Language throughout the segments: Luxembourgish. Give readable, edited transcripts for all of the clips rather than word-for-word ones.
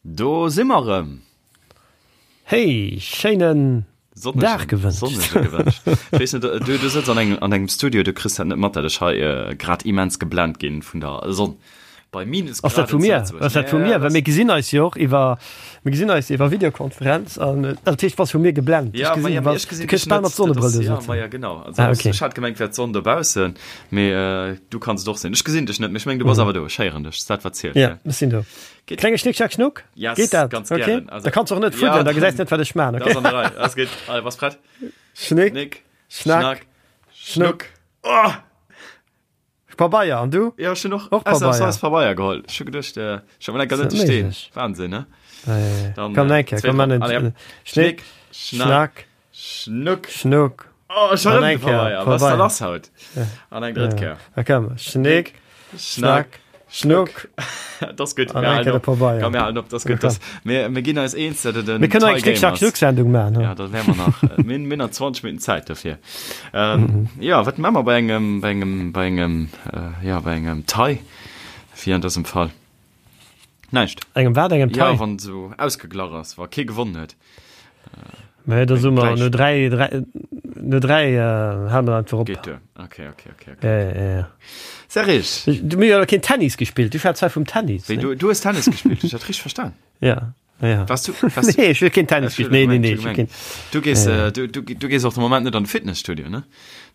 Do si mer erëm! Hey, schéinen Dag gewënscht. Sonnege gewënscht. Ech weess net, du, du sëtz an engem, an engem Studio, du kriss dat net mat, dat ech hei grad immens geblent ginn vun der Sonn. Bei Minusgraden Ass dat vu mir? Ass dat vu mir? Well mir gesinn eis jo och iwwer, mir gesinn eis iwwer Videokonferenz an dat heescht, bass vu mir geblent. Ja, ma ja, mee ech gesinn dech net. Mat Sonnebrëll do Ja, ma ja, genau. Also, ah, okay. Ech hat gemengt, wär d'Sonn dobaussen, mee du kanns et och sinn. Ech gesinn dech net, mee ech mengen, du bass awer do. Ech héieren dech. Dat wat zielt. Ja, ech sinn do. Geht. Klenge Schnick, Schnack, Schnuck? Yes, Geht dat? ganz okay. gerne. Also, da kannst du och net fuddelen, ja, da gesäis net, wat ech man. Okay? Das an der Reihe. Das geht. Allez, was prett? Schnick, Schnick, Schnack, Schnack, Schnuck. Schnuck. Oh! Pabeier, an du? Ja, schon noch och Pabeier. Pabeier geholt. Schon gedacht, äh, schon mal net stehen. Wahnsinn, ne? Äh, Dann, komm, äh, komm, komm, Schnick, Schnick, Schnack, Schnuck. Schnuck. Oh, schon erëm de Pabeier. Was ist da lass haut? An eng drëtt Kéier. Da komm. Schnick, Schnack, Schnuck. Dat ass gutt. An eng Kéier de Pabeier. Komm, mir halen op. Dat ass gutt. Das, mir, mir ginn eis eens, dat et en Mir kënnen eng Tie Schnick, Schnack, Game ass. Schnuck-Sendung maachen. Ja, da wäre mer nach äh, mir, mir nach 20 Minuten Zäit dofir. Ähm, ja, wat maache mer bei engem, bei engem, bei engem, äh, ja, bei engem Tie, wéi an dësem Fall? Näischt. Engem wat? Engem Tie? Ja, wann esou ausgeglach ass, wa kee gewonnen huet. Mä da soe mer no 3, 3, no 3 hale mer einfach op. Geet duer. Okay, okay, okay, okay. Ja, ja, ja. Serge! Du, mir hu jo keen Tennis gespillt. Du schwätz hei vum Tennis. Wéi, du, du hues Tennis gespillt? Hu ech dat richteg verstan? Ja, ja. Warst du, warst Nee, ech hu keen Tennis gespillt. Nee, nee, nee, ech hu keen. Du gees, äh, du, du, du gees och de Moment net an de Fitnesstudio, ne?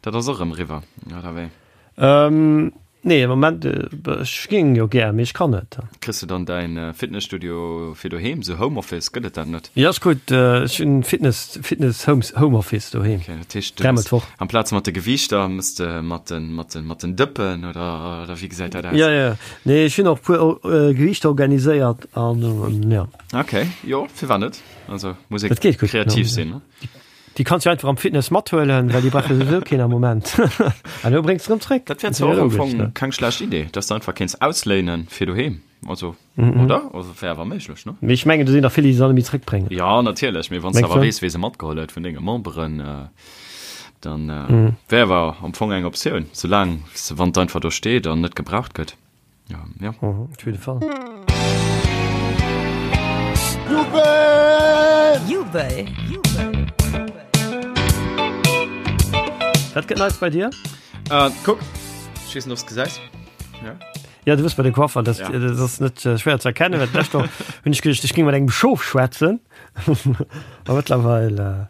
Dat ass och erëm eriwwer, oder wéi? Ähm, nee, am Moment, ech géing jo gär, mee ech kann net. Kriss de dann däin Fitnesstudio fir doheem, sou Homeoffice, gëtt et dat net? Jo, ass gutt, ech hunn Fitness, Fitness Home, Homeoffice doheem. Okay, dat heescht, du Dräimol d'Woch. amplaz mat de Gewiichter mëss de mat den, mat den, mat den Dëppen oder, oder wéi gesäit dat aus? Jo, jo, nee, ech hunn och puer Gewiichter organiséiert an jo. Okay, jo, firwat net? Also muss ee Dat geet gutt, kreativ sinn, ne? Déi kanns du einfach am Fitness mathuelen, well déi brauch jo souwisou keen am Moment. An elo bréngs de rëm zréck. Dat wär zwar och am Fong keng schlecht Idee, dass de einfach kéints ausléinen fir doheem, also, oder? Also wär awer méiglech, ne? Mee ech mengen, do sinn der vill, déi se dann net méi zréckbréngen. Jo, natierlech, mee wann s de awer weess, wee se matgeholl huet vun denge Memberen, dann wär awer am Fong eng Optioun, soulaang se, wann et einfach do steet an net gebraucht gëtt. Ja, ja. Mhm, op jidde Fall. Jubel! Jubel! Wat gëtt Neits bei dir? Äh, kuck, ech weess net, ob s gesäis. Ja. Ja, du bist bei de Coiffer, das, Ja. das ass net äh, schwer ze erkennen. Well d'lescht Woch hunn ech geduecht, ech géing mat engem Schof schwätzen. A mëttlerweil äh,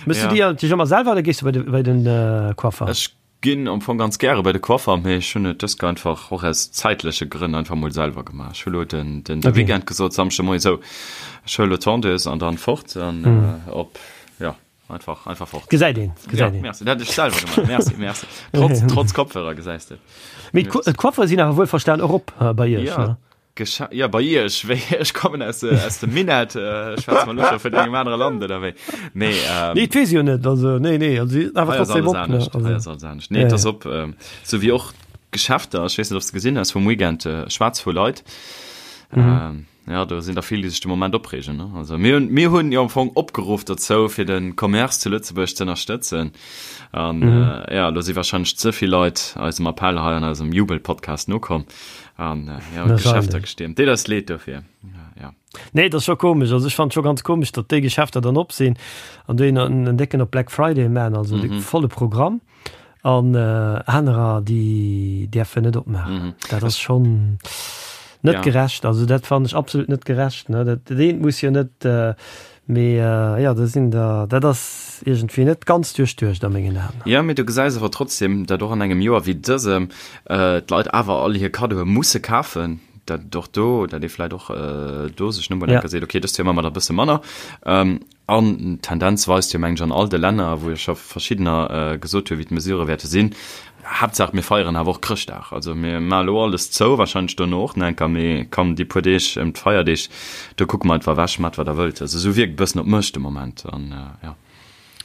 Mëss Ja. du dir dech ëmmer selwer oder gees du bei de, bei den äh, Coiffer? Ech Ginn am Fong ganz gäre bei de Coiffer, mee ech hunn et dëst Kéier einfach och aus zäitleche Grënn einfach mol selwer gemaach. Ech hu lo den den Okay. Weekend gesot, Samschde Moie sou, ech huele lo d'Tondeuse an dann fort an op, jo, einfach einfach fort. Gesäit een, Ja, gesäit een. merci, dat hätt ech selwer gemaach. Merci, merci. Trotz trotz Kopfhörer gesäis de et. Mee d'Coiffere sinn awer wuelverstan och op bei iech, Ja. ne? Gescha ja, bei iech, wéi ech kommen aus, äh, aus dem Minett, äh, schwätze mer lo scho vun engem anere Land oder wéi? Mee, ähm, Nee, et weess ech jo net, also nee, nee, also si awer hei ass trotzdem alles op, ne? anescht, hei Also, ass alles anescht. Nee, ja, et ass ja. op, ähm, sou wéi och d'Geschäfter, ech weess net, ob s de gesinn hues vum Weekend, äh, schwaarz vu Leit. Mhm. Ähm, ja, do sinn der vill, déi sech de Moment opreegen, ne? Also mir hunn, mir hunn jo am Fong opgeruff dozou, fir de Commerce zu Lëtzebuerg ze ënnerstëtzen. An, Mhm. äh, ja, lo si wahrscheinlech ze vill Leit eisem Appell hei an eisem Jubel-Podcast nokomm. An äh, ja, Geschäfter gestiermt. Deet eis leed dofir. Ja, ja. Nee, dat ass scho komesch. Also ech fand scho ganz komesch, datt déi Geschäfter dann op sinn an déi en en décken op Black Friday man, also mm -hmm. volle Programm an äh, anerer déi däerfen net opmaachen. Mm -hmm. Dat ass schon net ja. gerecht. Also dat fand ech absolut net gerecht. Ne? Dat, dat eent muss jo net äh, Mee jo, do sinn der, dat ass iergendwéi net ganz duerchduecht a mengen Aen. Jo, mee du gesäis awer trotzdem, datt och an engem Joer wéi dësem d'Leit awer all hir Kaddoe musse kafen, datt et och do, datt ee vläicht och do sech no emol eng Kéier seet, okay, dëst Joer maache mer der e bësse manner. An d'Tendenz weist jo, mengen ech, an all de Länner, wou jo scho verschiddener gesot hunn, wéi d'Mesurë wäerte sinn, Haaptsaach mir feieren awer och Chrëschtdag. Also mir maache lo alles zou, wahrscheinlech dono och nach eng Kéier, mee komm déi puer Deeg ëm d'Feierdeeg, do kucke mer einfach ewech, maacht wat der wëllt. Also esou wierkt e bëssen op mech de Moment an jo.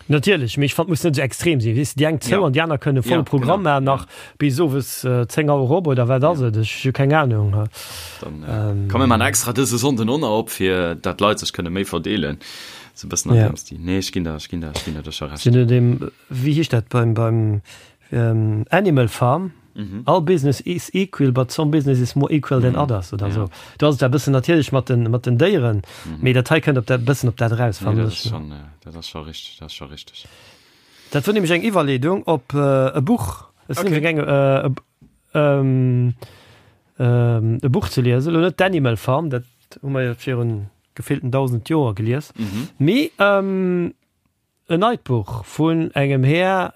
Natierlech, mee ech fannen et muss net esou extrem sinn, weess de, déi eng zou Ja. an déi aner kënne volle Ja, Programm genau, maachen ja. nach bis owes 10 Auer op oder wat ass Ja. et, ech hu keng Ahnung. Dann komm mir maachen extra dëse Sonnden och nach op, fir dat d'Leit sech kënne méi verdeelen, esou e bëssen an Ja. deem Stil. Nee, ech ginn der, ech ginn der, ech ginn der do scho Recht. Sinn no deem, wéi heescht dat beim, beim Animal Farm? All business is equal, but some business is more equal than others oder esou. Do ass et e bëssen natierlech mat den, mat den Déieren, mee dat hei kënnt op dat, bëssen op dat eraus, fannen ech. Dat ass scho richteg, dat ass scho richteg. Dat wor nämlech eng Iwwerleedung op e Buch. Ech sinn nämlech gaangen e Buch ze liesen, elo net d'Animal Farm, dat hu mer jo virun gefillten 1.000 Joer gelies, mee En neit Buch vun engem Här,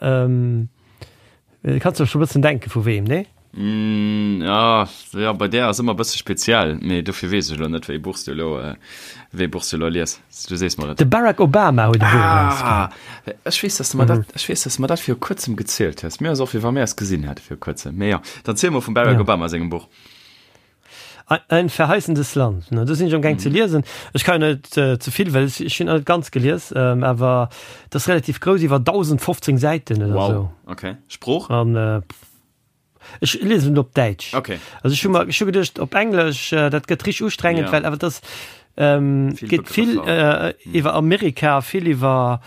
kanns der scho bëssen denken vu weem, nee? Ja, ja, bei där ass ëmmer bësse speziell, mee dofir weess ech elo net, wéi Buch s du elo, wéi Buch s du elo lies. Du sees mer et. De Barack Obama huet e Buch erausginn. Ah, ech weess, dass de mer dat, ech weess, dass de mer dat viru kuerzem gezielt hues. Mir ass och, wéi wa mir eis gesinn hätte viru kuerzem. Mee jo, dann ziel mol vum Barack Obama sengem Buch. Ein verheißendes Land, ne, do sinn ech amgaang ze liesen. Ech kann jo net ze vill, well ech hunn net ganz gelies, awer dat ass relativ grouss, iwwer 1015 Säiten oder Wow, esou. okay. Sprooch? An ech liesen et op Däitsch. Okay. Also ech hu mer, ech hu geduecht op Englesch, dat gëtt richteg ustrengend, Ja. well awer dat ass, Vill geet vill Begrëffer. iwwer Amerika, vill iwwer,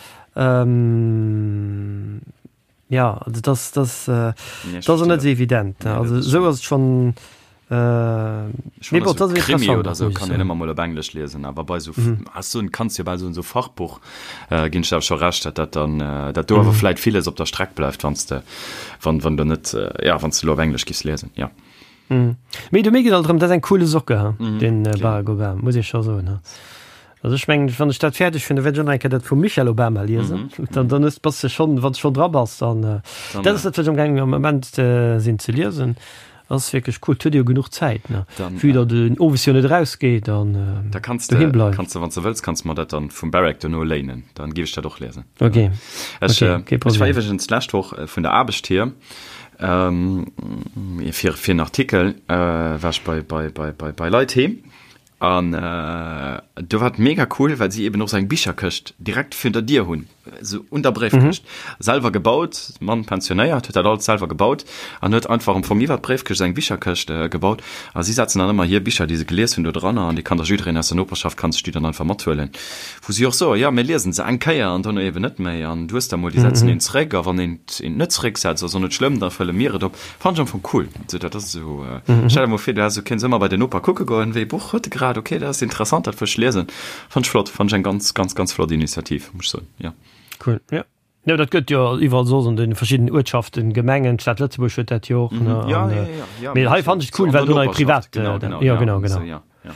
Ja, also das, das, äh, das ass net sou evident. Ne? Also sou ass et schon. Äh, nee, bon, das Krimi oder so kann een ëmmer mol op Englesch liesen, awer bei sou mhm. hast du kannst jo bei so so Fachbuch äh, ginn ech awer scho recht, dat dat dann äh, dat do awer mhm. vläit villes op der Streck bleift, wann du wann wann du net äh, ja wann du lo op Englesch giss liesen ja. Mhm. Mee du mir geet alt drëm, dat ass eng coole Socke ha mhm. den äh, Barack Obama, muss ich scho soen. Ha. Also ech mengen, wann ech dat fäerdeg hunn, da wäert ech och nach eng Kéier dat vum Michelle Obama liesen. Dann, dann hues, bass de schonn, wann s de schonn dra bass, dann, Dann, dat ass dat, wat ech amgaangen am Moment sinn ze liesen. Ass wierklech cool. Et huet ee jo genuch Zäit, ne? Dann, Vue datt een owes jo net erausgeet an Da kanns de, doheem bleift. kanns de, wann s de wëlls, kanns de mer dat dann vum Barack dono léinen. Dann géif ech dat och liesen. Ok. Ech, Ok, kee ech war Problem. iwwregens d'lescht Woch vun der Aarbecht hier, fir, fir en Artikel, war ech bei, bei, bei, bei, bei Leit heem. An do war et mega cool, well si eben och sou eng Bicherkëscht direkt virun der Dier hunn, sou un der Bréifkëscht. Selwer gebaut, Mann pensionéiert, huet dat alles selwer gebaut an huet einfach am Fong iwwer d'Bréifkëscht sou eng Bicherkëscht gebaut. A si setzen dann ëmmer hir Bicher, déi se gelies hunn, do dranner an déi kann da jiddereen aus der Noperschaft kann sech déi dann einfach mathuelen. Wou si och soen, jo, mir liesen se eng Kéier an dono eben net méi. An du hues da mol, déi setzen een zeréck a wann een et net zerécksetzt, ass och net schlëmm, da fëlle mir et op. Fannen ech am Fong cool. So, dat ass esou, stell der mol vir, du häss, du kéints ëmmer bei den Noper kucke goen, wéi e Buch huet e grad, okay, dat ass interessant, dat wëll ech liesen. Fannen ech flott, fannen ech eng ganz, ganz, ganz flott Initiativ, muss ech soen, jo. Cool, jo. Jo, dat gëtt jo iwwerall soss an de verschiddenen Uertschaften, Gemengen, d'Stad Lëtzebuerg huet dat jo och, ne, an, mee hei fannen ech et cool, well do nei privat, jo, genau, genau. Ja, ja, ja.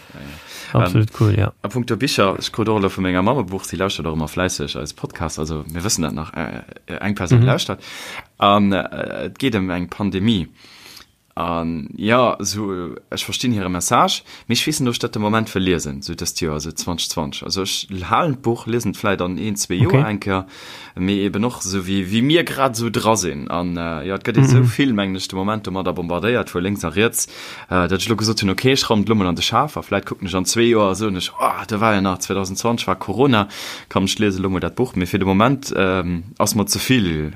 Absolut cool, ja. A punkto Bicher, ech krut och elo vu menger Mamm e Buch, si lauschtert och ëmmer fläisseg eise Podcast, also mir wëssen dat nach, eng Persoun lauschtert. An et geet ëm eng Pandemie. An jo, esou, ech verstinn hire Message, mee ech weess net, ob ech dat de Moment wëll liesen, esou dëst Joer, esou 2020. Also ech halen d'Buch, liesen et vläit an een, zwee Joer eng Kéier, mee eben och esou wéi, wéi mir grad esou dra sinn. An jo, et gëtt ee sou vill, mengen ech, de Moment domadder bombardéiert vu lénks a riets, datt ech elo gesot hunn, okay, ech raumen et elo mol an de Schaf a vläit kucken ech an zwee Joer a soen ech, oh, do war jo nach, 2020 war Corona, komm, ech liese elo mol dat Buch. Mee fir de Moment ass mer ze vill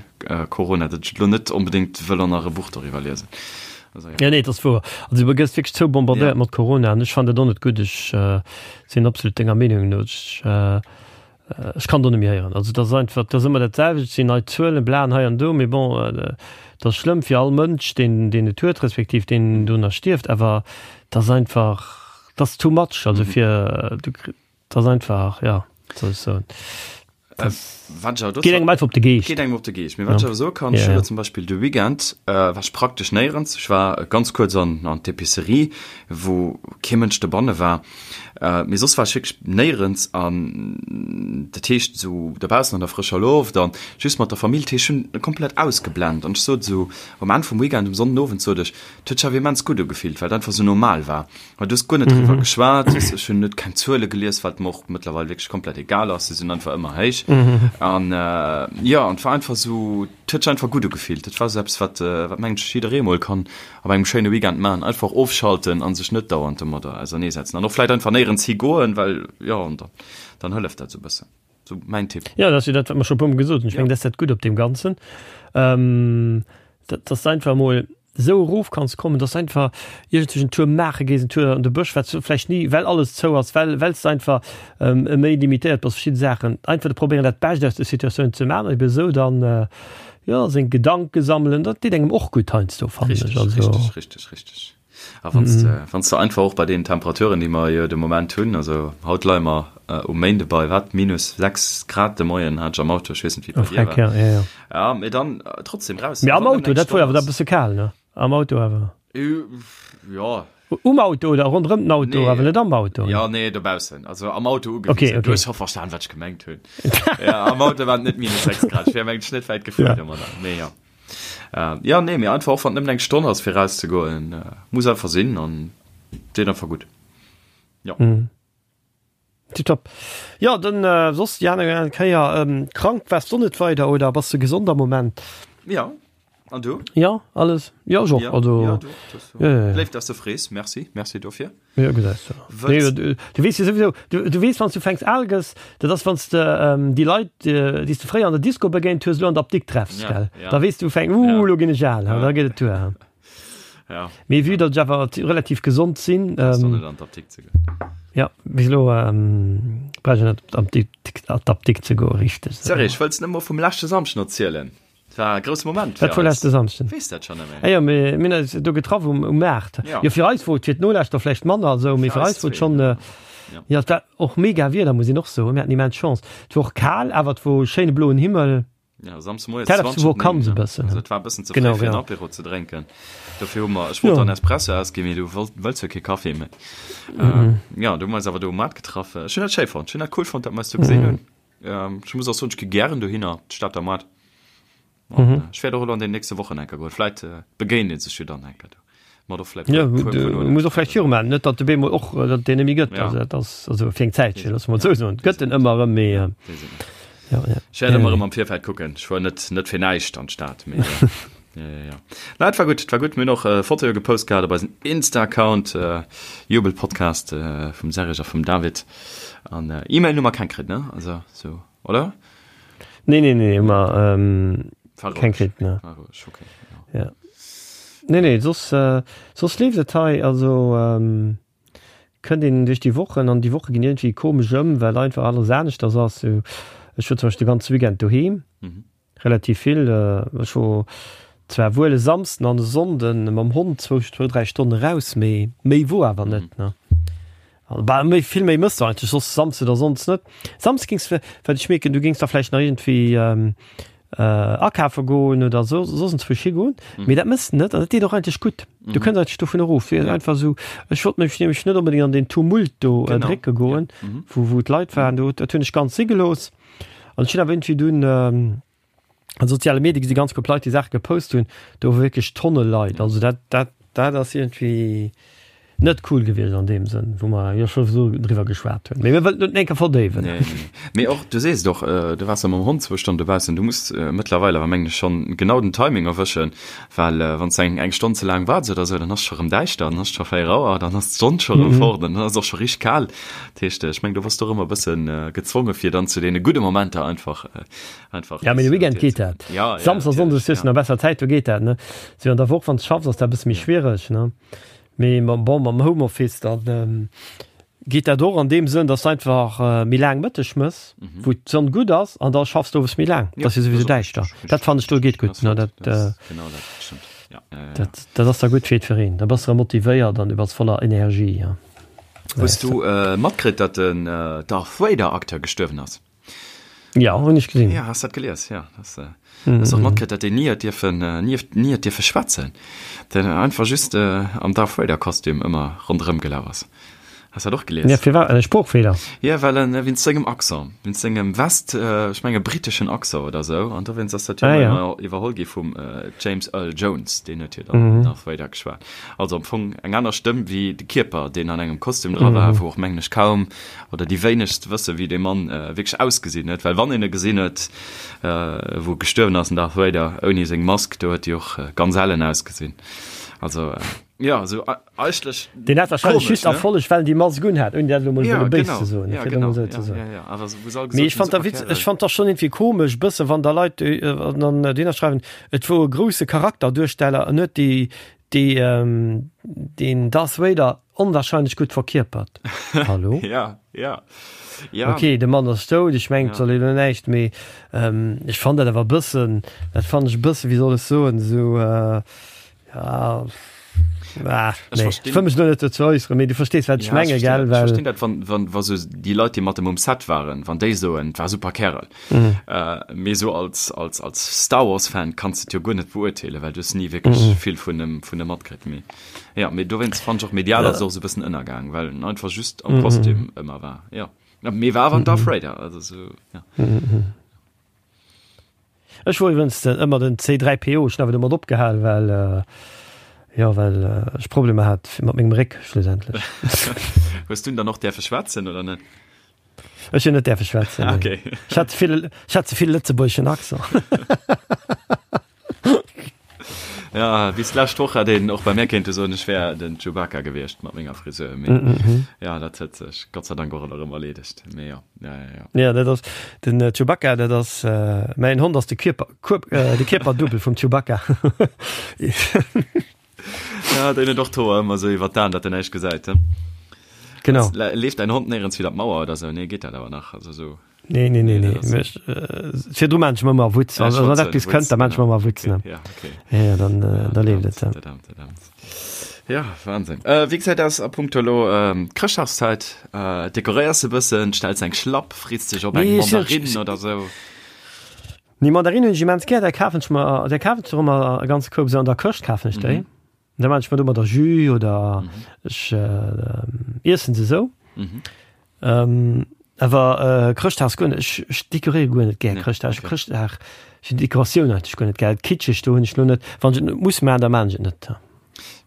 Corona, datt ech elo net onbedéngt wëll och nach e Buch doriwwer liesen. Also, ja. Ja, nee, dat ass wouer. Also du gëss wierklech zoubombardéiert ja. mat Corona an ech fannen dat och net gutt. Ech äh, sinn absolut denger Meenung no. Ech, äh, ech kann do net méi héieren. Also dat ass einfach, dat ass ëmmer dat selwecht, et sinn nei Zuelen, bla an hei an do, mee bon, äh, dat ass schlëmm fir all Mënsch, deen, deen et huet, respektiv deen dono stierft, awer dat ass einfach, dat ass too much. Also fir, du, dat ass einfach, ja, wat soll ech soen. Geet engem einfach op de Geescht. Geet engem op de Geescht. Mee wat ech awer soe kann, ech hu jo zum Beispill de Weekend, war ech praktesch néierens. Ech war ganz kuerz an an d'Epicerie, wou kee Mënsch dobanne war. Mee soss war ech wierklech néierens an dat heescht esou dobaussen an der frëscher Loft an just mat der Famill. Dat heescht, ech hunn komplett ausgeblent an ech sot esou um Enn vum Weekend, um Sonnenowend sot ech, et huet sech awer immens gutt ugefillt, well et einfach esou normal war. Well du hues guer net driwwer geschwat, ech hunn net keng Zuele gelies, wat mer och mëttlerweil wierklech komplett egal ass, se sinn einfach ëmmer héich. An jo, an et war einfach esou, et huet sech einfach gutt ugefillt. Et war esou eppes, wat, wat mengen ech jidderee mol kann op engem schéine Weekend maachen, einfach ofschalten a sech net dauernd domadder auserneesetzen an och vläicht einfach néierens higoen, well jo, an dann, dann hëlleft dat esou e bëssen. Sou mäin Tipp. Jo, dat ass jo dat, wat mer scho e puermol gesot hunn. Ech mengen, dat ass dat Gutt op deem Ganzen, dat, dass de einfach emol esou erof kanns kommen, dass de einfach iergendwéi en Tour maache gees, en Tour an de Bësch, wat s du vläicht ni, well alles zou ass, well, well s de einfach méi limitéiert bass, verschidde Saachen. Einfach de probéieren, dat Bescht aus der Situatioun ze maachen an ebe sou dann, jo. Jo, seng Gedanke sammelen, dat deet engem och gutt heiansdo, fannen ech. Richteg, Also. richteg, richteg, richteg. A wann s de, wann s de einfach och bei deenen Temperaturen, déi mer jo de Moment hunn, also haut leie mer um Méinde bei, wat, minus 6 Grad de Moien hat ech am Auto, ech weess net, wéi et bei dir war. Ja, ja, ja. Ja, mee dann trotzdem raus. Mee am Auto, dat wor jo awer da e bësse kal, ne? Am Auto awer. Jo. Um Auto oder ronderëm den Auto, nee. awer net am Auto. Ja, nee, dobaussen. Also am Auto ugewiesen. Okay, okay. Du hues scho verstan, wat ech gemengt hunn. ja, am Auto waren net minus 6 Grad. Ech wär mengt net wäit gefuer ja. domadder. Nee, ja. Äh, ja, nee, mee einfach och wann nëmmen eng Stonn ass fir rauszegoen, äh, muss einfach sinn an deet einfach gutt. Ja. Mhm. Tipptopp. Jo, dann soss déi aner Kéier. Krank waars du net weider oder bass de gesond am Moment? Jo, an du? Jo, alles. Jo, ech och. Also, jo, du och. Jo, jo. Léif, dass de frees. Merci, merci dofir. Jo, gesäis de. Nee, du, du weess jo souwisou, du, du weess, wann s du fänks al gëss, dat ass, wann s de déi Leit, déi s de fréier an der Disco begéint hues, elo an der Apdikt treffs, gell? Da weess du, fäng, uh, elo ginn ech al, da geet et duer. Ja. Mee vue datt ech awer relativ gesond sinn. Ähm, net an d'Apdikt ze goen. Ja, bis elo ähm, brauch ech net an d'Apdikt ze goen, richteg. Sorry, ech wëlls net mol vum leschte Samschden erzielen. Et war e grousse Moment fir Wat wor leschte Samschden? Weess dat schon net méi. Ah jo, mir mir hunn eis do getraff um, um Maart. Ja. Jo, fir eis wor et, fir d'Nolauschter vläicht manner esou, mee fir eis wor et schon, äh, Ja. ja, et war och mega Wieder, muss een och soen. Mir haten immens Chance. Et wor och kal, awer et wor schéine bloen Himmel. Ja, Samsdes moies Dat ass 20 wor kann 9, se ne? bëssen. Also et war e bëssen ze fréi Genau, fir en genau. Apéro ze drénken. Dofir hu mer, ech wollt Jo. dann Espresso ausginn, mee du wollt, wëlls jo kee Kaffi méi. Äh, ja, du hu mer eis awer do um Maart getraff. Ech hunn dat schéi fonnt. Ech hunn dat cool fonnt, dat mer eis do gesinn hunn. Ähm, ech muss och soen, ech gi gären dohinner, d'Stater Maart. An, äh, ech wäert och elo an den nächste Wochen eng Kéier goen. Vläit äh, begéint ee sech jo dann eng Kéier do. Mat och vläit Ja, puer, puer, du puer Nolen. muss och vläicht viru maachen, net datt de bemol och, äh, datt deen net méi gëtt. Ja. Also dat ass also fir eng Zäitchen, loosse mer et Ja. esou soen. Et gëtt en ëmmer erëm, mee äh, Weess et net. ja, ja. Ech wäert ëmmer erëm am Virfeld kucken. Ech fuer net, net fir näischt an d'Stad, mee ja. Ja, ja, ja. Na, et war gutt, et war gutt. Mir hunn och äh, Fotoe gepost gehat op eisen Insta-Account, äh, Jubelpodcast äh, vum Serge a vum David. An äh, E-Mail hu mer keng kritt, ne? Also, so, oder? Nee, nee, nee, hu mer ähm, War keng roueg. kritt, ne. War roueg, okay. Ja. Ja. Nee, nee, soss, äh, soss leeft et hei, also ähm, kënnt een duerch déi Wochen an déi Woche ginn iergendwéi komesch ëm, well einfach alles aneschters ass. Sou, ech wor zum Beispill de ganze Weekend doheem, relativ vill. Ech wor zwar wuel e Samsden an e Sonnden mam Hond zwou, zwou, dräi Stonne raus, mee méi wor awer net, ne. Bah, méi, vill méi mëss du eigentlech soss Samsde oder Sonndes net. Samsdes géings, wat ech mierken, du géings da vläicht nach iergendwéi akafe goen oder so, soss enzwousch higoen, mee dat mëss de net an dat deet och eigentlech gutt. Du kënns eigentlech dovun erof. Fir einfach esou, ech wollt mech nämlech net onbedéngt an deen Tumult do drécke goen, wou, wou d'Leit waren. Do, dat hunn ech ganz si gelooss. An ech hunn awer iergendwéi dunn an soziale Medie gesi ganz gutt Leit, déi Saache gepost hunn, do wor wierklech Tonne Leit. Also dat, dat, dat ass iergendwéi net cool gewiescht an deem Sënn, wou mer jo scho sou driwwer geschwat hunn. Mee mir wëllen et net enker verdéiwen. Nee, nee, nee. Mee och, du sees et och, du waars jo mam Hond zwou Stonnen dobaussen. Du muss mëttlerweil awer, mengen ech, schonn genau den Timing erwëschen, well wann s de eng, eng Stonn ze laang waarts oder sou, dann ass et scho rëm däischter, dann ass et scho 4 Auer, dann ass d'Sonn scho rëm fort an dann ass et och scho richteg kal. Dat heescht, ech mengen, do bass du och ëmmer e bësse gezwonge fir dann zu deene gudde Momenter einfach Einfach ja, mee de Weekend geet dat. Ja, ja, Samsdes a Sonndes hues du nach besser Zäit, do geet dat, ne? Sou an der Woch, wann s schaffs, ass dat e bësse méi schwiereg, ne? Mee mam, bon, mam Homeoffice, dann geet dat och an deem Sënn, dass du einfach méi laang Mëtteg mëss, wou d'Sonn gutt ass, an da schaffs du owes méi laang. Dat ass jo souwisou däischter. Dat fannen ech do geet gutt, ne? Dat, Genau dat, stëmmt. Ja, ja, ja. dat, dat ass da gutt fir jiddwereen. Da bass de erëm motivéiert an du bass voller Energie, ja. Hues du matkritt, datt den Darth Vader-Acteur gestuerwen ass? Ja, hunn ech gesinn. Ja, has dat gelies? Ja, das, äh, mm -hmm. och matkritt, dat deen nie huet dierfen, äh, nie, nie huet dierfe schwätzen. Den einfach just äh, am Darth Vader Kostüm ëmmer ronderëm gelaf ass. Has dat och gelies? Ja, firwat? En Sproochfeeler? Ja, well en äh, wéinst sengem Accent, wéinst sengem West, äh, ech menge britteschen Accent oder sou, an dowéinst ass dat jo Ah, ja. ëmmer iwwerholl gi vum äh, James Earl Jones, deen huet jo dann mm -hmm. Darth Vader geschwat. Also am Fong eng aner Stëmm wéi de Kierper, deen an engem Kostüm dra war, mm -hmm. wou och mengen ech kaum oder déi wéinegst wësse wéi dee Mann wierklech ausgesinn huet, well wann een e gesinn huet, wou e gestuerwen ass, den Darth Vader, ouni seng Mask, do huet déi och ganz ellen ausgesinn. Also jo, esou eigentlech Deen hat wahrscheinlech komesch, just ne? Erfolleg, well en déi Mask un hat, ouni dat elo mol Ja, wëlle béis genau, ze soen, ja, fir et emol genau, esou ze ja, soen. ja, ja, awer wou se all Mee gesot ech hunn, fand da super witz, ech Kärel. fand da schonn iergendwéi komesch bësse wann da Leit an dann dohinner schreiwen, et wor e grousse Charakterduersteller, en huet déi. Déi, deen Darth Vader onwahrscheinlech gutt verkierpert. Hallo? Ja, ja. Ja. Ok, de Mann ass dout, ech mengen, et soll een elo näischt, mee ech fannen dat awer e bëssen, dat fannen ech e bëssen, wéi soll ech soen, esou, ja, ah, nee, ech wëll mech elo net dozou äusseren, mee du verstees, wat ech Ja, ech menge, verstinn gell, dat. Ech well. verstinn dat, wann, wann, wa sou déi Leit, déi mat em um Set waren, wann déi soen, et war e super Kärel. Mee sou als, als, als Star Wars Fan kanns de et jo guer net beurteelen, well du hues ni wierklech vill vun em, vun em matkritt. Mee ja, mee dowéinst fannen ech och medial ass et och sou e bëssen ënnergaang, well en einfach just am Kostüm ëmmer war. Jo, mee war awer en Darth Vader, also sou, ja. Ech wor iwwrens ëmmer den C3PO, ech hunn awer domat opgehal, well, jo, well ech Problemer hat mat mengem Réck schlussendlech. Hues du dann och däerfe schwätzen oder net? Ech hunn net däerfe schwätzen. Ah, okay. Ech hat ze vill, ech hat ze vill lëtzebuergeschen Accent. Ja, bis d'lescht Woch hat een och bei mär kéinte soen, ech wär den Chewbacca gewiescht mat menger Frisur. Mee mm -hmm. ja, dat huet sech Gott sei Dank och erëm erleedegt. Mee ja, ja, ja, ja. Ja, dat ass den äh, Chewbacca, dat ass äh, mäin Hond ass de Kierper, Kuer, äh, de Kierperdubbel vum Chewbacca. Ja, deen huet och d'Hoer ëmmer esou iwwer d'Aen, datt en näischt gesäit, he? Genau. Leeft däin Hond néierens widder d'Mauer oder esou? Nee, geet dat awer nach? Also esou. Nee, nee, nee, nee. nee. Ech, äh, virdru maan ech mer ëmmer Wutz. Ja, also, wann eppes kënnt, da maan ech mer ëmmer Wutz, ne? Ja, okay. Ja, ja, dann, äh, da leeft et. Dat amt, dat amt. Ja, Wahnsinn. Äh, wéi gesäit aus a punkto elo ähm, Chrëschtdagszäit? Äh, dekoréiers de bëssen, stells eng Schlapp, frees dech op eng Nee, ech, Mandarinn ech, oder esou? Nee, Mandarinen hunn ech immens gär, där kafen ech mer, där kafen ech och ëmmer e ganze Koup, esou an der Këscht kafen ech déi. Da maan ech mer domadder Jus oder ech iessen se esou. Awer Chrëschtdag guer net, ech ech dekoréiere guer net gär Chrëschtdag. Ech Chrëschtdag, ech hunn d'Dekoratioun eigentlech guer net gär. Kitscheg do hunn ech lo net, wann ech et net muss maan, da maan ech et net.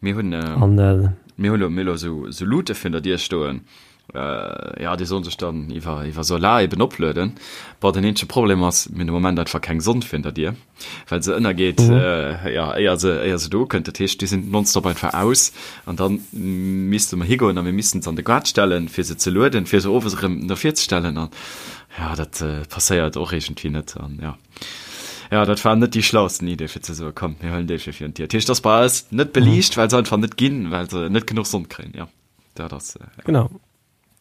Mir hunn, mir hunn elo esou Lute virun der Dier stoen. Jo, déi sollen sech dann iwwer iwwer Solar eben oplueden. Bon, den eenzege Problem ass, mir hunn de Moment einfach keng Sonn virun der Dier, well se ënnergeet, jo, éier se éier se do ukënnt. Dat heescht, déi sinn nonstop einfach aus an dann misste mer higoen a mir missten se an de Gaart stellen, fir se ze lueden, fir se owes erëm no vir ze stellen. An jo, dat passéiert och iergendwéi net. An jo, jo, dat war net déi schlausten Idee, fir ze soen, komm, mir huelen déi fir virun d'Dier. Dat heescht, ass bei eis net beliicht, well se einfach net ginn, well se net genuch Sonn kréien, jo. Dat ass, ja. Genau.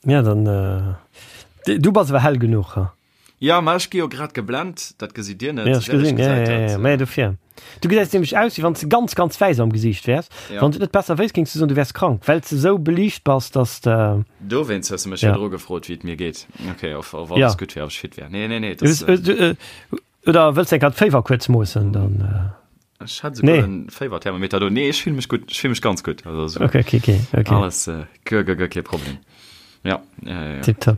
Ja, dann, äh, du bass awer hell genuch, ha? Ja, ma ech gi jo grad geblent, dat gesitt Dir net. Ja, ech gesinn, ja, ja, ja, ja, dofir. Du gesäis nämlech aus, wéi wann s de ganz, ganz wäiss am Gesiicht wäers. Ja. Wann s et net besser wéisst, géings du soen, du wäers krank, well s de esou beliicht bass, dass de. Dowéinst hues de mech virdru gefrot, wéi et mir geet. Okay, of, of alles gutt wär, ob ech fit wär. Nee, nee, nee, das, äh, Oder wëlls de eng Kéier d'Féiwer kuerz moossen, dann. Ech hat souguer en Féiwerthermometer do. Nee, ech fille mech gutt, ech fille mech ganz gutt. Also so okay, okay, okay, okay. Alles äh, guer, guer, guer kee Problem. Ja, ja, ja, ja. Tipptopp.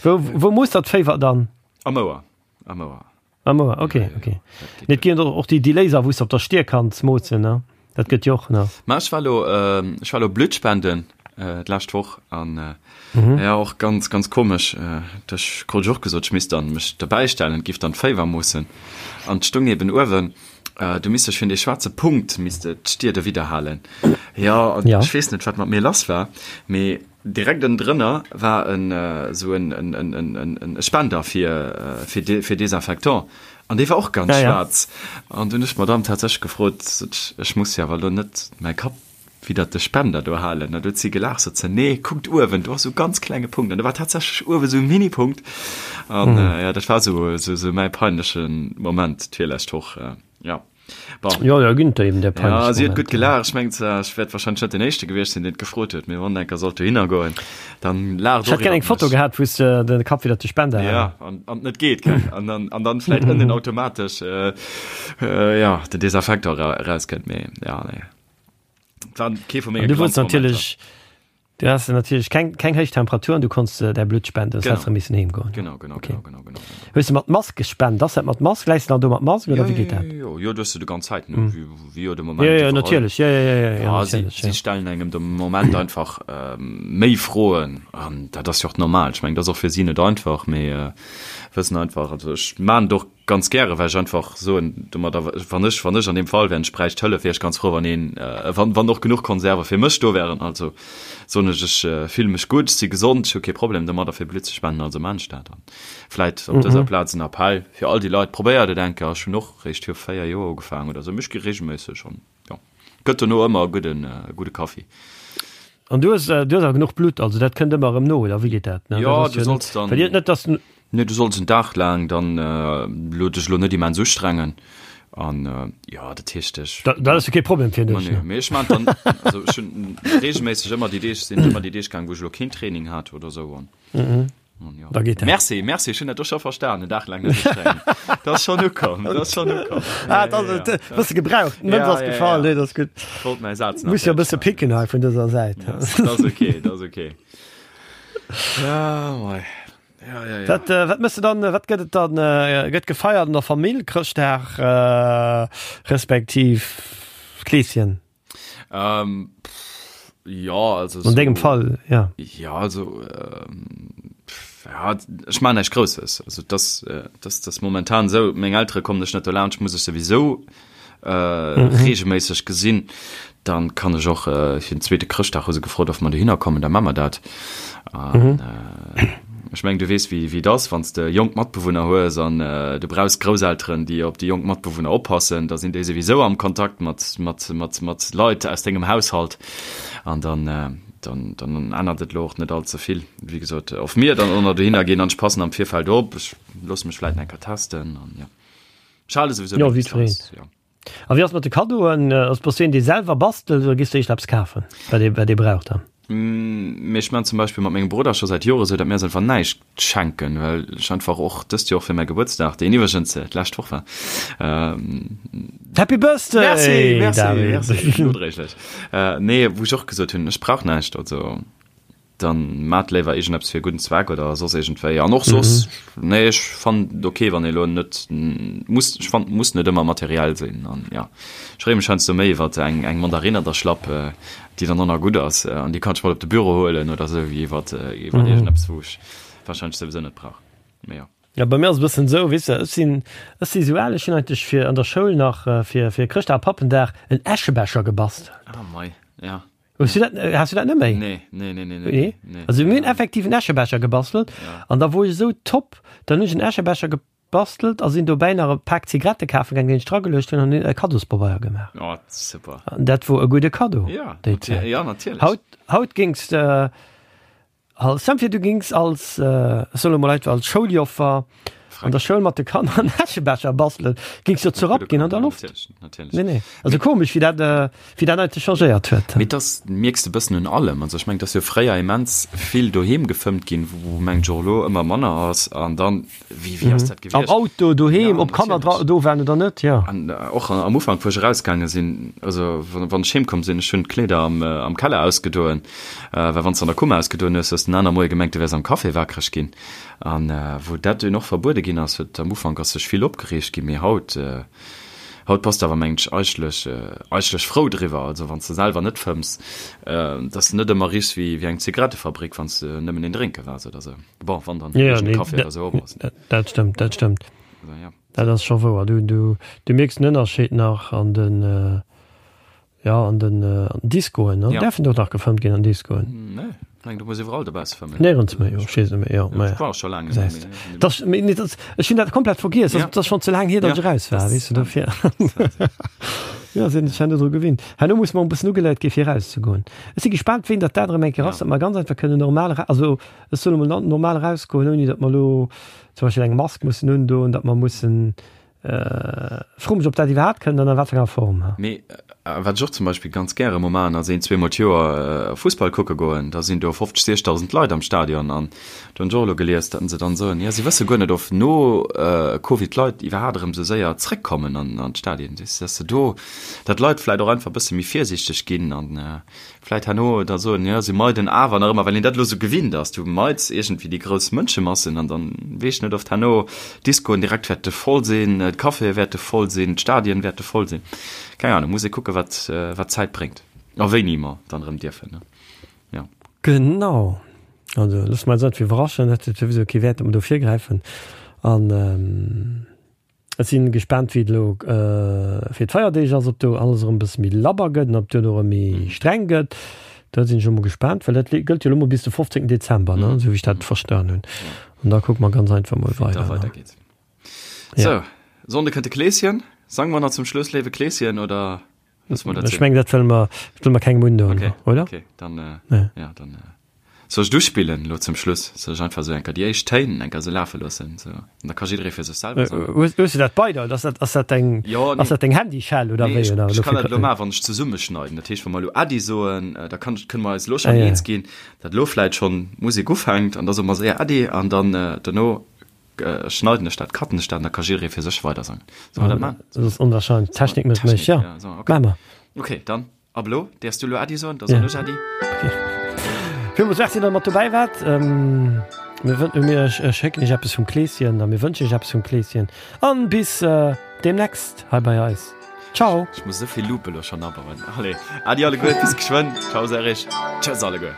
Wou, wou moosst der d'Féiwer dann? Am Ouer, am Ouer. Am Ouer, okay, ja, ja, okay. Nee, et ginn och déi, déi Laser, wou s de op der Stier kanns moossen, ne? Dat gëtt jo och, ne? Ma ech war lo, äh, ech war lo Blutt spenden äh, d'lescht Woch an äh, mhm. ja och ganz ganz komesch. Äh, ech krut ech och gesot, ech misst dann mech dobäi stellen, giff dann d'Féiwer moossen. An d'stung eben uewen, äh, du misst dech fir dee schwaarze Punkt misst de d'Stier dowidder halen. Ja, an ja. ech weess net, wat mat mir lass war, mee direkt ënnendrënner war en esou en, en, en, en, en, e Spender fir, fir, de, fir Desinfectant. An dee war och ganz ja, schwaarz. Ja. An dunn ech d'Madame tatsächlech gefrot, sot ech, ech muss jo awer elo net mäi Kapp widder de Spender do halen. An du huet si gelaacht, sot se, nee, kuckt uewen, do ass esou e ganz klenge Punkt. An do war tatsächlech uewe esou e Mini-Punkt. An mhm. äh, ja, dat war esou, esou, esou mäi peinleche Moment d'virlescht Woch. Äh, ja. Bon. Jo, jo, ginn der eben der peinlech Ja, si huet gutt gelaacht. Ech mengen zwar, ech wäert wahrscheinlech net den Éischte gewiescht sinn, deen et gefrot huet, mee wann enker sollt dohinner goen, dann laacht Ech hätt och gär eng iwwert Foto mech. gehat, wou s de de Kapp widder de Spender Ja, halen. an, an et net geet, gell? An dann, an dann vläit ënnen automatesch, äh, äh, ja, den Desinfektor era, erauskënnt, mee ja, nee. War kee vu An menge du wollts Glanzmomenter. natierlech, du has natierlech keng, keng héich Temperatur an du konns däi Blutt spenden, sonst häss de Genau. missen heem goen. Genau, genau, Okay. genau, genau, genau, genau. Hues de mat Mask gespent? Ass dat mat Mask? Läis de dann do mat Mask Ja, oder wéi ja, geet ja, dat? jo, jo, du hues se de ganz Zäit, ne, wéi, wéi jo de Moment Ja, ja, iwwerall. natierlech, ja, ja, ja, ja, ja, Ja, si, natierlech, si ja. stellen engem de Moment einfach méi Froen an dat ass jo och normal. Ech mengen, dat ass och fir si net einfach, mee wëssen einfach, also ech maan et och ganz gäre, well ech einfach soen domadder, wann ech, wann ech an deem Fall wär, ech bräicht Hëllef, wier ech ganz frou, wann een, wann, wann och genuch Konserve fir mech do wären. Also soen ech, ech fille mech gutt, ech si gesond, ech hu kee Problem domadder fir Blutt ze spenden, also maan ech dat. An vläit op dëser Plaz en Appell fir all déi Leit, probéiert et eng Kéier. Ech hunn och réischt viru 4 Joer ugefaangen oder sou, mee ech gi reegelméisseg an jo, gëtt. Gëtt dono ëmmer e gudden, gudde Kaffi. An du hues, du hues awer genuch Blutt, also dat kënnt ëmmer erëm no, oder wéi geet dat? Ne? Jo, du solls dann. Well net, dass. Nee, du solls en Dag laang dann elo dech elo net immens ustrengen an jo, dat heescht ech. Dat ass jo kee Problem fir dech. Nee, mee ech maan dann, also ech hunn reegelméisseg ëmmer déi Deeg, sinn ëmmer déi Deeg gaang, wou ech elo keen Training hat oder sou an. Da geet dat. Merci, merci, ech hunn dat och scho verstan, en Dag laang net ustrengen. Dat ass schonn ukomm, dat ass schonn ukomm. Ah, dat ass et, e bësse gebraucht, d'Mënz ass gefall, nee, dat ass gutt. Wollt mäi Saz nach. Muss jo e bësse picken hei vun dëser Säit. Dat ass ok, dat ass ok. Ja, mei. Ja, ja, ja. Wat, äh, wat mëss du dann, wat gëtt et dann, äh, gëtt gefeiert an der Famill, Chrëschtdag, äh, respektiv Kleeschen? Ähm, pff, ja, also An dengem Fall, ja. Ja, also, ähm, pff, ja, ech maachen näischt Grousses. Also, das, äh, das, das momentan esou, meng Eltere kommen ech net dolaanscht, muss ech souwisou regelméisseg gesinn, dann kann ech och fir den zweete Chrëschtdag hu se gefrot, ob mer dohinner kommen, da maache mer dat. An ech mengen, du weess, wéi et ass, wann s de jonk Matbewunner hues an du brauchs Grousselteren, déi op déi jonk Matbewunner oppassen, da sinn déi souwisou am Kontakt mat, mat, mat, mat Leit aus dengem Haushalt. An dann, dann, dann ännert et elo och net all ze vill. Wéi gesot, of mir dann och nach dohinner ginn an ech passen am Virfeld op, ech loosse mech vläicht eng Kéier testen an jo. Ech hale souwisou meng Distanz, jo. A wéi ass mat de Kaddoen? Ass bass du een dee selwer bastelt oder gees du éischter eppes kafen, wat ee wat ee brauch dann? Mee ech man zum Beispill mat mengem Brudder scho säit Jore sou, datt mir eis einfach näischt schenken, well ech einfach och dëst Joer fir mäi Gebuertsdag, deen iwwregens d'lescht Woch war, Happy Birthday! Merci, merci, merci, nodréiglech. Nee, wou ech och gesot hunn, ech brauch näischt, also. Dann maat léiwer iergendeppes fir e gudden Zweck oder soss iergendwéi. An och soss, nee, ech fannen et ok, wann ee lo net muss, ech fannen, et muss net ëmmer materiell sinn. An jo, ech freeë mech heiansdo méi iwwert eng, eng Mandarinn an der Schlapp, déi dann och nach gutt ass an déi kann ech mat op de Büro huelen oder sou, wéi iwwert, iwwert iergendeppes, wou ech warscheinlech souwisou net brauch. Mee jo. Jo, bei mir ass et e bëssen esou, weess de, ech sinn, ech si sou al, ech hunn eigentlech fir an der Schoul nach fir, fir Chrëschtdag a Pappendag en Äschebecher gebastelt. Ah mei, ja. Hues du dat, has du dat net méi? Nee, nee, nee, nee, nee. Nee? Also mir hunn effektiv en Äschebecher gebastelt ja. an da wor ech esou top, dann hunn ech en Äschebecher gebastelt a sinn dobäi nach e Pak Zigarette kafe gaangen, deen ech drageluecht hunn an hunn e Kaddospabeier gemaach. Oh, super. An dat wor e gudde Kaddo. Ja, déi Zäit. Ja, natierlech. Haut, haut géings de Als Stell vir du gings als, ech soen elo mol einfach als Schouljoffer an der Schoul mat de Kanner en Äschebecher bastelen, gings jo zerrappt ginn an der Loft. Natierlech, natierlech. Nee, nee. Also komesch wéi dat, wéi dat eigentlech changéiert huet. Mee dass mierks de bëssen un allem. Also ech mengen, dass jo fréier immens vill doheem gefëmmt ginn, wou mengen ech och elo ëmmer manner ass. An dann Wéi, wéi ass dat gewiescht? Am Auto, doheem, ob Kanner dra, do waren oder net, jo. An och am Ufank, wou ech erausgaange sinn, also wann ech heemkomm sinn, ech hunn d'Kleeder am, am Keller ausgedoen, well wann s de an der Kummer ausgedoen hues, hues de den aner Moie gemengt, du wäers am Café wakereg ginn. An wou dat dunn och verbuede ginn ass, huet am Ufank ass sech vill opgereegt ginn, mee haut, haut bass de awer, mengen ech, eigentlech, eigentlech frou driwwer. Also wann s de selwer net fëmms, dass de net ëmmer richs wéi, wéi eng Zigarettefabrik, wann s de nëmmen een drénke waars oder sou. Bon, wann dann ja, nee, Kaffee oder so Dat stëmmt, dat stëmmt. Also, ja. Dat ass scho wouer. Du, du, du mierks den Ënnerscheed nach an den äh, ja, an den, äh, an den Discoen. Ne? Ja. Därfen do nach gefëmmt ginn an Discoen? Nee, eng, du muss iwwerall dobausse fëmmen. Néierens méi, jo, ech weess net méi, jo, ma ja. War scho laang net méi. Das, nee, das, ech hunn dat komplett vergiess. Ja. Das ass schon ze laang hier, datt ja. ech eraus war, weess du, dofir. Ja, sinn ech herno dru gewinnt. Herno muss mer e bëssen ugeleiert gi fir erauszegoen. Ech si gespaant, wéini datt dat erëm eng Kéier ass, datt mer ganz einfach kënnen normal, also Ech soen emol normal erausgoen, ouni datt mer elo zum Beispill eng Mask mussen undoen, datt mer mussen, ech froe mech, ob dat iwwerhaapt kënnt an a wat fir enger Form. Mee wat ech och zum Beispill ganz gäre emol maachen, ass een, zweemol d'Joer Fussball kucke goen. Da sinn do 50, 60.000 Leit am Stadion an do hunn ech och elo gelies, datt se dann soen, jo si wësse guer net, of no Covid d'Leit iwwerhaapt erëm esou séier zréckkommen an d'Stadien. Datt se do, datt d'Leit vläicht och einfach e bësse méi virsiichteg ginn an Vläit herno da soen, jo, si meiden awer nach ëmmer, well een dat elo sou gewinnt ass, du meids iergendwéi déi grouss Mënschemassen an dann weess ech net, oft herno d'Discoen direkt wäerte voll sinn, d'Caféë wäerte voll sinn, d'Stadien wäerte voll sinn. Keng Ahnung, muss ee kucke wat, wat d'Zäit bréngt a wéini mer dann erëm dierfen, ne? Jo. Genau. Also loosse mer eis einfach iwwerraschen, et huet souwisou kee Wäert, datt mer do virgräifen an. Ech sinn gespaant wéi et elo fir d'Feierdeeg ass, ob do alles erëm e bësse méi labber gëtt an ob duerno erëm méi streng gëtt. Do sinn ech elo mol gespaant, well dat gëllt jo elo mol bis de 15 Dezember, ne, esou wéi ech dat verstan hunn. An da kucke mer ganz einfach mol weider. Wéi et da weidergeet. Sou, Sonnde kënnt de Kleeschen. Sange mer nach zum Schluss Léiwe Kleeschen, oder? Ech meng dat wëlle mer, dat wëlle mer kengem undoen, okay. oder? Okay, dann, äh, ja. ja dann äh, soll ech duspillen lo zum Schluss? Soll ech einfach sou enker déi éischt Téin enker sou lafe loossen? Sou, an da ka jidderee fir sech selwer sangen. Hues, hues du dat bei der? Ass dat, ass dat deng, ja, nee. ass dat deng Handyschell oder nee, wéi? Ech, oder, ech kann dat lo maachen, wann ech zesummeschneiden. Dat heescht, wa mer lo Äddi soen, äh, da kann, kënne mer eis lo schon ah, ja. eens ginn, dat lo vläit schon Musek ufänkt an da soe mer séier Äddi an dann äh, dono Schneiden ech dat, cutten ech dat an da ka jidderee fir sech weider sangen. Solle mer dat man? Dat ass onwahrscheinlech. D'Technik mécht mech, ja. Ja, so, okay. Maache mer. Okay, dann ab elo däerfs du elo Äddi soen, da soen ech Äddi. Okay. Villmools Merci, datt der mat dobäi waart. Mir wën, mir schécken iech eppes vum Kleeschen a mir wënschen iech eppes vum Kleeschen an bis deemnächst hei bei eis. Ciao! Ech muss esou vill Loop elo schonn abauen. Allez, Äddi alleguer, bis geschwënn. Ciao Serge. Tschëss alleguer.